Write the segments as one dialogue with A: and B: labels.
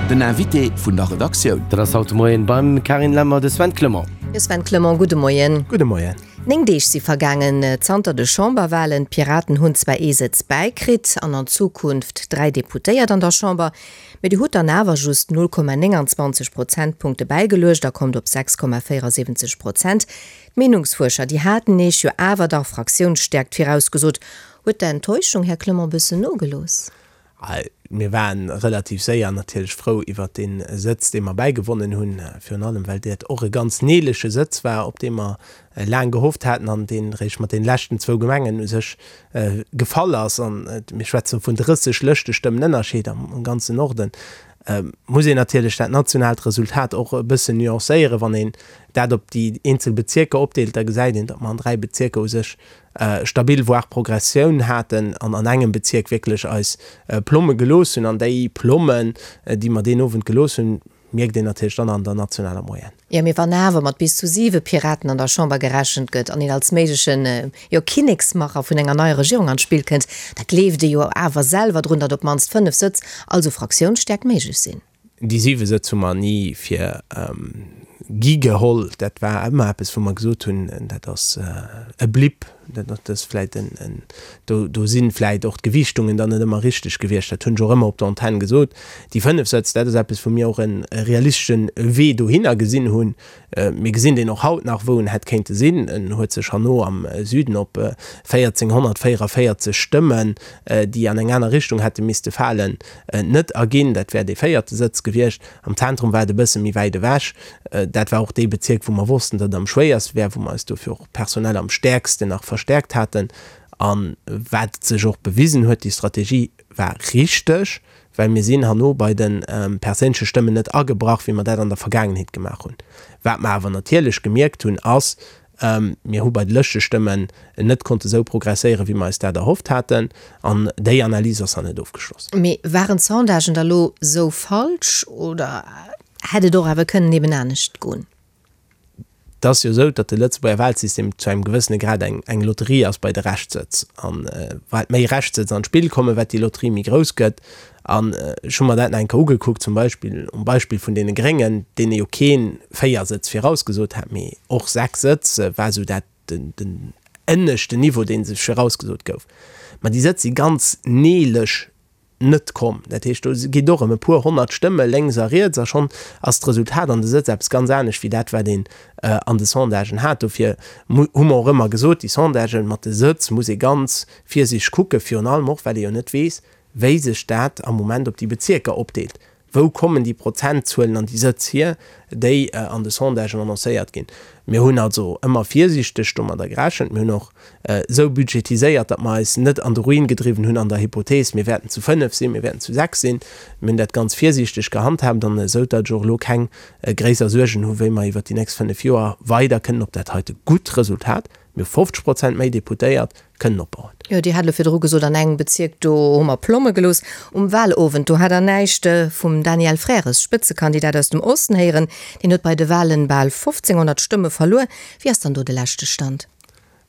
A: Den Invité vun der Redaktioun.
B: Dat ass haut de Moien beim Carine Lemmer de Sven Clement.
C: Jo Sven Clement, gudde Moien.
D: Gudde Moien.
C: 9 Deeg si vergaangen zanter de Chamberwalen. D'Piraten hunn zwar ee Sëtz bäikritt an an Zukunft 3 Deputéiert an der Chamber, mee Dir hutt dann awer just 0,29 Prozentpunkte bäigeluecht a kommt op 6,74 Prozent. D'Meenungsfuerscher, déi haten Iech jo awer dach Fraktiounsstäerkt virausgesot. Huet d'Enttäuschung, Här Clement, bëssen nogelooss?
D: Mir waren relativ séier natierlech frou iwwert dee Sëtz, dee mer bäigewonnen hunn, virun allem well dat och e ganz neelege Sëtz war, op dee mer laang gehofft haten an deen eréischt mat deene leschten zwou Gemengen u sech gefall ass. An mir schwätze vun 30 Lëschtestëmmen Ënnerscheed am ganzen Norden. Muss een natierlech dat nationaalt Resultat och e bëssen nuancéieren. Wann een dat op déi eenzel Bezierker opdeelt, da gesäit een, datt mer an dräi Bezierker u sech stabil voire Progressioun haten an an engem Bezierk wierklech eis Plomme gelooss hunn. An déi Plommen, déi mer deen Owend gelooss hunn, mierkt een natierlech dann an der nationaler Moyenne.
C: Jo, mee wann awer mat bis zu siwe Piraten an der Chamber gerechent gëtt an een als méiglechen, jo, Kinneksmacher vun enger neier Regierung an d'Spill kënnt, da gleeft ee jo awer selwer drun, datt op d'mannst fënnef Sëtz, also Fraktiounsstäerkt, méiglech sinn.
D: Déi siwe Sëtz hu mer ni fir gi geholl. Dat war ëmmer eppes, wou mer gesot hunn, dat ass e Blip, dat ass vläicht en, do, do si vläicht och d'Gewiichtungen dann net ëmmer richteg gewiescht. Dat hunn ech och ëmmer op der Antenn gesot. Déi fënnef Sëtz, dat ass eppes, wou mir och e realistesche Wee dohinner gesinn hunn. Mir gesinn deen och haut nach, wou en hätt kéinte sinn. En huet sech herno am Süden op 1.444 Stëmmen, déi an eng aner Richtung hätte misste falen, net erginn. Dat wär dee véierte Sëtz gewiescht. Am Zentrum war et e bësse méi wäit ewech. Dat war och dee Bezierk, wou mer wossten, datt et am schwéierste wär, wou mer eis dofir och personell am stäerksten nach verstäerkt haten. A wat sech och bewisen huet, déi Strategie war richteg. Well mir sinn herno bei de perséinleche Stëmmen net agebrach, wéi mer dat an der Vergaangenheet gemaach hunn. Wat mer awer natierlech gemierkt hunn, ass, Mir hu bei de Lëschtestëmmen net konnte sou progresséieren, wéi mer eis dat erhofft haten. An déi Analys ass nach net ofgeschloss.
C: Mee waren d'Sondagen da lo sou falsch oder hätt et och awer kënnen eben anescht goen?
D: Et ass jo esou, datt de Lëtzebuerger Wahlsystem zu engem gewëssene Grad eng eng Lotterie ass bei de Reschtsëtz. An wat méi Reschtsëtz an d'Spill kommen, wat déi Lotterie méi grouss gëtt. An ech hu mer dat nach eng Kéier ugekuckt, zum Beispill um Beispill vun deene Gréngen, deene jo kee 4 Sëtz virausgesot hat, mee och 6 Sëtz war esou dat den den ënneschten Niveau, dee sech virausgesot gouf. Ma déi Sëtz si ganz neelech net komm. Dat heescht, do geet och ëm e puer 100 Stëmme lénks a riets a schonn ass d'Resultat an de Sëtz eppes ganz anescht wéi dat, wat een an de Sondagen hat. Dofir hu mer och ëmmer gesot, déi Sondagen mat de Sëtz muss ee ganz virsiichteg kucken, virun allem och, well ee jo net weess, wéi sech dat am Moment op déi Bezierker opdeelt. Wou kommen déi Prozentzuelen an déi Sëtz hier, déi an de Sondagen annoncéiert ginn? Mir hunn also ëmmer virsiichteg domadder gerechent. Mir hunn och esou budgetiséiert, datt mer eis net an de Ruin gedriwwen hunn an der Hypothees, mir wäerten zu 5 sinn, mir wäerten zu 6 sinn. Mir hunn dat ganz virsiichteg gehandhaabt an esou, datt ech och elo keng gréisser Suergen hu wéi mer iwwert déi nächst 5 Joer weider kënnen op dat heite gutt Resultat, mir hu 50 Prozent méi Deputéiert, kënnen opbauen.
C: Jo, Dir hat elo virdru gesot, an engem Bezierk, do hu mer Plomme gelooss. Um Wahlowend, do hat Der näischt vum Daniel Frères, Spëtzekandidat aus dem Osten, héieren. Deen huet bei de Wahlen bal 1.500 Stëmme verluer. Wéi ass dann do de leschte Stand?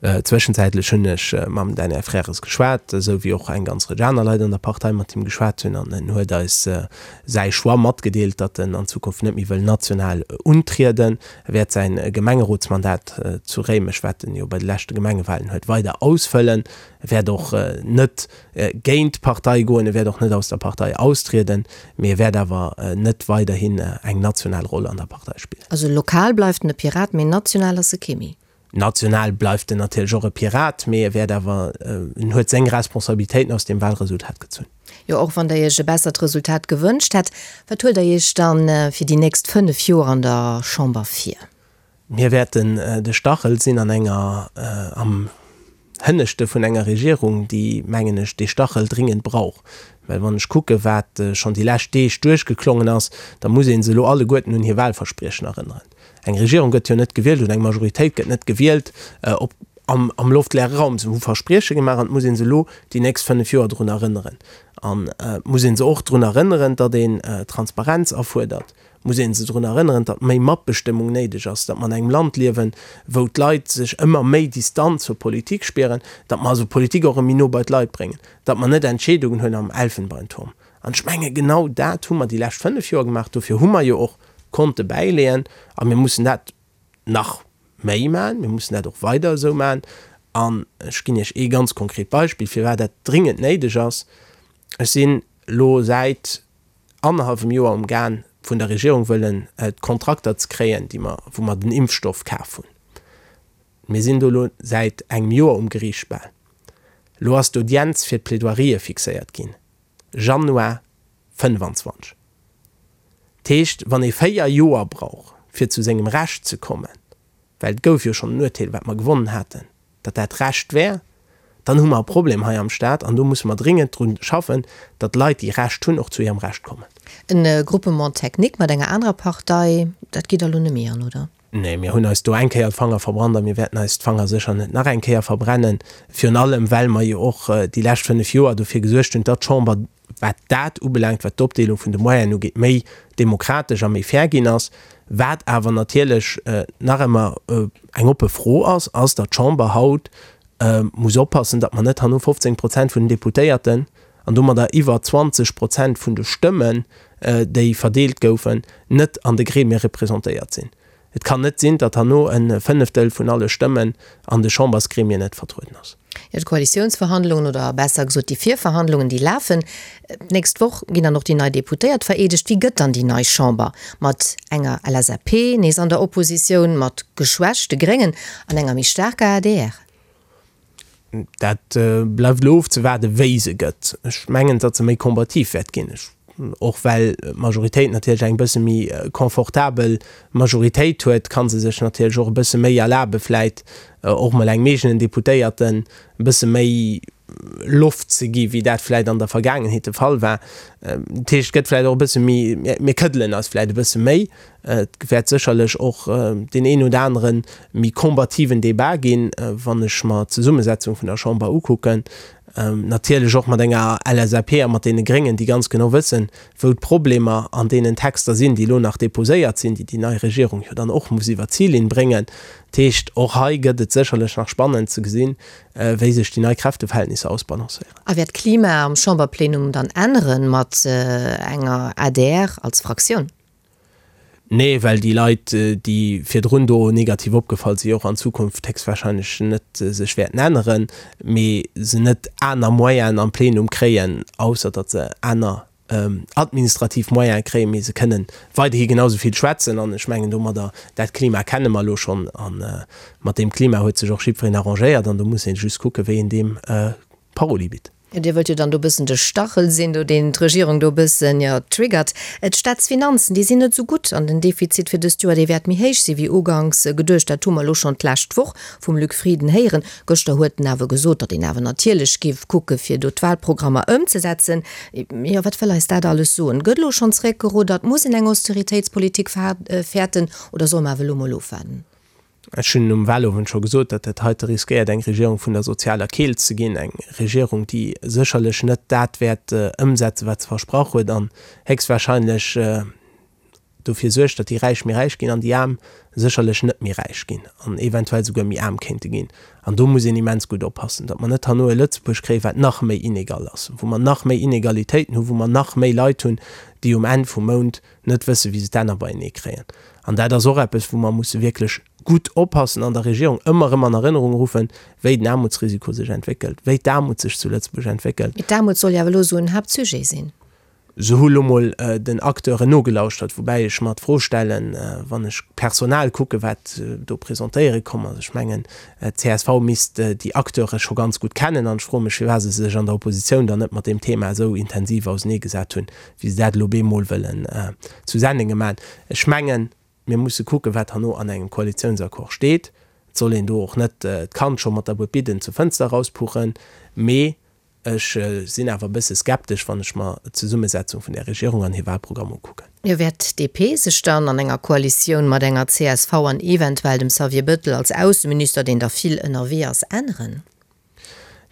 D: Zwëschenzäitlech hunn ech mam Daniel Frères geschwat, esou wéi och eng ganz Rëtsch aner Leit an der Partei mat him geschwat hunn. An en huet eis säi Choix matgedeelt, datt en an Zukunft net méi wëll national untrieden. E wäert säin Gemengerotsmandat zu Réimech, wat en jo bei de leschte Gemengewahlen huet, weider ausfëllen. E wäert och net géint d'Partei goen, e wäert och net aus der Partei austrieden, mee e wäert awer net weiderhin eng national Roll an der Partei spillen.
C: Also lokal bleift en e Pirat, mee national ass e kee méi.
D: National bleift en natierlech och e Pirat, mee e wäert awer, en huet seng Responsabilitéiten aus deem Wahlresultat gezunn.
C: Jo, och wann Der Iech e bessert Resultat gewënscht hätt. Wat huelt Der Iech dann fir déi nächst 5 Joer an der Chamber vir?
D: Mir wäerten de Stachel sinn an enger, am Hënneschte vun enger Regierung, déi, mengen ech, dee Stachel dringend brauch. Well wann ech kucke wat schonn déi lescht Deeg duerchgeklongen ass, da muss ee se elo alleguerten un hir Wahlverspriechen erënneren. Eng Regierung gëtt jo net gewielt oder eng Majoritéit gëtt net gewielt op am am loftleere Raum. Se hu Versprieche gemaach an et muss ee se elo déi nächst 5 Joer drun erënneren. An et muss ee se och drun erënneren, datt een Transparenz afuerdert. Et muss ee se drun erënneren, datt méi Matbestëmmung néideg ass, datt mer an engem Land liewen, wou d'Leit sech ëmmer méi Distanz zur Politik spieren, datt mer also Politik och erëm méi no bei d'Leit bréngen, datt mer net Entscheedungen huelen am Elfenbeinturm. An ech menge genau dat hu mer déi lescht 5 Joer gemaach. Dofir hu mer jo och konnte bäileeën a mir mussen dat nach méi maachen. Mir mussen dat och weider esou maachen. An ech ginn Iech ee ganz konkret Beispill, firwat dat dringend néideg ass. Ech sinn elo säit annerhallwem Joer um Gaang, vun der Regierung wëllen d'Kontrakter ze kréien, déi mer, wou mer den Impfstoff kaf hunn. Mir sinn do elo säit engem Joer um Geriicht bal. Elo ass d'Audienz fir d'Plaidoirië fixéiert ginn, Januar 25. Dat heescht, wann ee 4 Joer brauch, fir zu sengem Recht ze kommen, well et gouf jo schonn en Urteel, wat mer gewonnen haten, datt dat Recht wär, dann hu mer e Problem hei am Staat an do musse mer dringend dru schaffen, datt Leit, déi Recht hunn, och zu hirem Recht kommen.
C: E Groupement technique mat enger anerer Partei, dat geet der elo net méi an, oder?
D: Nee, mir hunn eis do eng Kéier d'Fanger verbrannt a mir wäerten eis d'Fanger sécher net nach eng Kéier verbrennen. Virun allem, well mer jo och déi lescht 5 Joer dofir gesuergt hunn, datt d'Chamber, wat dat ubelaangt, wat d'Opdeelung vun de Moyenen ugeet, méi demokratesch a méi fair ginn ass. Wat awer natierlech nach ëmmer eng oppe Fro ass, ass, datt d'Chamber haut muss oppassen, datt mer net herno 15 Prozent vun den Deputéierten an domadder iwwer 20 Prozent vun de Stëmmen, déi verdeelt goufen, net an de Gremie representéiert sinn. Et kann net sinn, datt herno e Fënneftel vun alle Stëmmen an de Chambersgremien net vertrueden ass.
C: Jo, d'Koalitiounsverhandlungen, oder besser gesot déi Virverhandlungen, déi lafen. D'nächst Woch ginn dann och déi nei Deputéiert vereedegt. Wéi gëtt dann déi nei Chamber? Mat enger LSAP nees an der Oppositioun, mat geschwächte Gréngen an enger méi staarker adr?
D: Dat bleift elo ofzewaarden, wéi se gëtt. Ech mengen, datt se méi combativ wäert ginn, och well d'Majoritéit natierlech eng bësse méi confortabel Majoritéit huet, ka se sech natierlech och e bësse méi erlabe vläit och mol engem eegenen Deputéierten e bësse méi Loft ze gi wéi dat vläit an der Vergaangenheet de Fall war. Dat heescht, et gëtt vläit och e bësse méi, mir këddelen eis vläit e bësse méi. Et wäert sécherlech och deen een oder anere méi combativen Débat ginn, wann ech mer d'Zesummesetzung vun der Chamber ukucken. Natierlech och mat enger LSAP a mat deene Gréngen, déi ganz genau wëssen, wou d'Problemer an deenen Texter sinn, déi elo nach déposéiert sinn, déi déi nei Regierung jo dann och muss iwwer d'Zillinn bréngen. Dat heescht, och hei gëtt et sécherlech nach spannend ze gesinn, wéi sech déi nei Kräfteverhältnisser ausbalancéieren.
C: A wäert d'Klima am Chamberplenum dann änneren mat enger adr als Fraktioun?
D: Nee, well déi Leit, déi virdrun do negativ opgefall si, och an Zukunft héchstwahrscheinlech net sech wäerten änneren, mee se net aner Moyenen am Plenum kréien, ausser datt se aner administrativ Moyene kréien, mee se kënnen weiderhi genau esou vill schwätzen. An ech mengen domadder, dat Klima kenne mer elo schonn a mat deem Klima huet sech och jiddwereen arrangéiert an do muss ee just kucken, wéi een deem Paroli bitt.
C: Dir wëllt jo dann do bëssen de Stachel sinn, do deen d'Regierung do bëssen, jo, triggert. D'Staatsfinanzen, déi sinn net esou gutt an den Defizit fir dëst Joer, dee wäert méi héich si wéi uganks geduecht. Dat hu mer elo schonn d'lescht Woch vum Luc Frieden héieren. Gëschter huet en awer gesot, datt een awer natierlech géif kucke fir do d'Wahlprogrammer ëmzesetzen. Jo, wat wëll eis dat alles soen? Gëtt elo schonn zeréckgeruddert? Muss een eng Austeritéitspolitik fäerten oder solle mer awer elo mol ofwaarden?
D: Ech hunn um Wahlowend scho gesot, datt dat heite riskéiert eng Regierung vun der sozialer Keelt ze ginn, eng Regierung, déi sécherlech net dat wäert ëmsetzen, wat se versprach huet an héchstwahrscheinlech dofir suergt, datt déi Räich méi räich ginn an déi Aarm sécherlech net méi räich ginn an eventuell souguer méi aarm kéinte ginn. An do muss een immens gutt oppassen, datt mer net herno e Lëtzebuerg kréien, wat nach méi inegal ass, wou mer nach méi Inegalitéiten hunn, wou mer nach méi Leit hunn, déi um Enn vum Mount net wëssen, wéi se d'Enner beienee kréien. An dat ass och eppes, wou mer musse wierklech gutt oppassen an der Regierung ëmmer erëm an Erënnerung ruffen, wéi den Aarmutsrisiko sech entwéckelt, wéi d'Aarmut sech zu Lëtzebuerg entwéckelt.
C: Mee d'Aarmut soll jo awer elo esou en Haaptsujet sinn.
D: Se hu lo mol den Acteuren nogelauschtert, woubäi ech mer d'Fro stellen, wann ech d'Personal kucken, wat do presentéiere komm ass, ech mengen, d'CSV misst déi Acteure scho ganz gutt kennen an ech froe mech, firwat se sech an der Oppositioun dann net mat deem Thema esou intensiv auseneegesat hunn. wéi se dat elo bemol wëllen zu Sennenge maachen. Ech mengen, mir musse kucken, wat herno an engem Koalitiounsaccord steet. Et soll een do och net d'Kand scho mat der Buedbidden zur Fënster erauspuchen. Mee ech sinn awer e bësse skeptesch, wann ech mer d'Zesummesetzung vun där Regierung an hir Wahlprogramm ukucken.
C: Jo, wäert d'DP sech dann an enger Koalitioun mat enger csv an eventuell dem Xavier Bëttel als Ausseminister, deen da vill ënnerwee ass, änneren?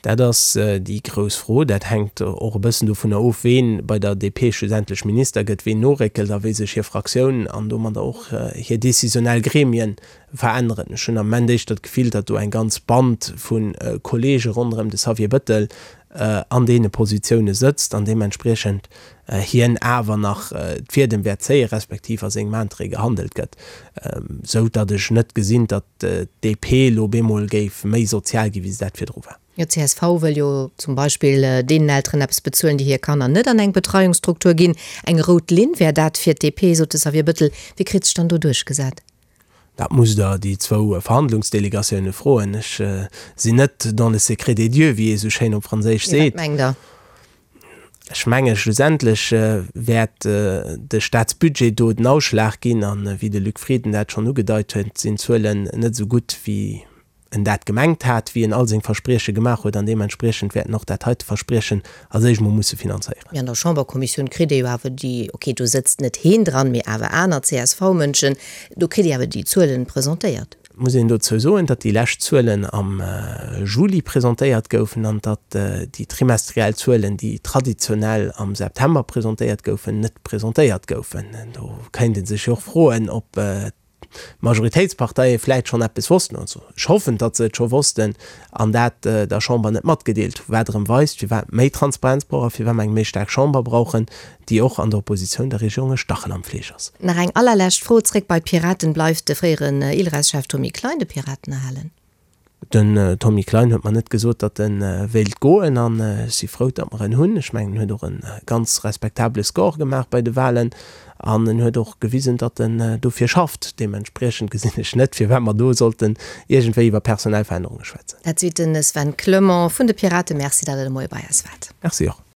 D: Dat ass déi grouss Fro. Dat hänkt och e bëssen dovunner of, ween bei der DP schlussendlech Minister gëtt, ween noréckelt a wéi sech hir Fraktioun an domadder och hir décisionnel Gremien veränneren. Ech hunn am Ament éischter d'Gefill, datt do eng ganz Band vu Kollege ronderëm de Xavier Bëttel. an deene Positioune sëtzt an deementspriechend hien awer nach d'Fiedem wäert zéien, respektiv a sengem Interêt gehandelt gëtt, sou datt ech net gesinn, datt d'DP elo op eemol géif méi sozial ginn, wéi se dat virdru war.
C: Jo, csv wëll jo zum Beispill deenen Elteren eppes bezuelen, déi hir Kanner net an eng Betreiungsstruktur ginn. Eng rout Linn wär dat fir d'DP, sot de Xavier Bëttel. Wie kritt sech dann do duerchgesat?
D: Dat musst Der déi zwou Verhandlungsdelegatioune froen. Ech sinn net dans le secret des dieux, wéi ee sou schéin op Franséisch
C: seet. Mee wat mengt Der?
D: Ech menge schlussendlech wäert de Staatsbudget do den Ausschlag ginn. A wéi de Luc Frieden dat schonn ugedeit huet, sinn d'Zuelen net esou gutt, wéi en dat gemengt hat, wéi en all seng Versprieche gemaach huet, an deementspriechend wäert en och dat heite Verspriechen als éischt mol musse finanzéieren.
C: Mee an der Chamberkommissioun kritt ee jo awer déi, ok, do sëtzt net heen dran, mee awer aner CSV-Mënschen, do kritt ee awer déi Zuelen presentéiert.
D: Et muss een dozou soen, datt déi lescht Zuelen am Juli presentéiert goufen an datt déi trimestriell Zuelen, déi traditionell am September presentéiert goufen, net presentéiert goufen. Do kéint ee sech jo och froen, ob d'Majoritéitsparteie vläit schonn eppes wossten, also ech hoffen, datt se et scho wossten an dat der Chamber net matgedeelt hunn, wat erëm weist, firwat méi Transparenz brauch a firwat mer eng méi staark Chamber brauchen, déi och an der Oppositioun der Regierung e Stachel am Fleesch ass.
C: Nach eng allerlescht Fro, zréck bei d'Piraten, Bleift de fréieren ILReS-Chef Tommy Klein de Piraten erhalen?
D: Den Tommy Klein huet mer net gesot, datt e wéilt goen an ech si frou, datt mer en hunn. Ech mengen, en huet och e ganz respektabele Score gemaach bei de Wahlen an en huet och gewisen, datt en dofir schafft. Deementspriechend gesinn ech net, firwat mer do sollten iergendwéi iwwer personell Verännerunge schwätzen.
C: Dat seet de Sven Clement vun de Piraten. Merci, datt Der de Moie bei eis waart.
D: Merci och.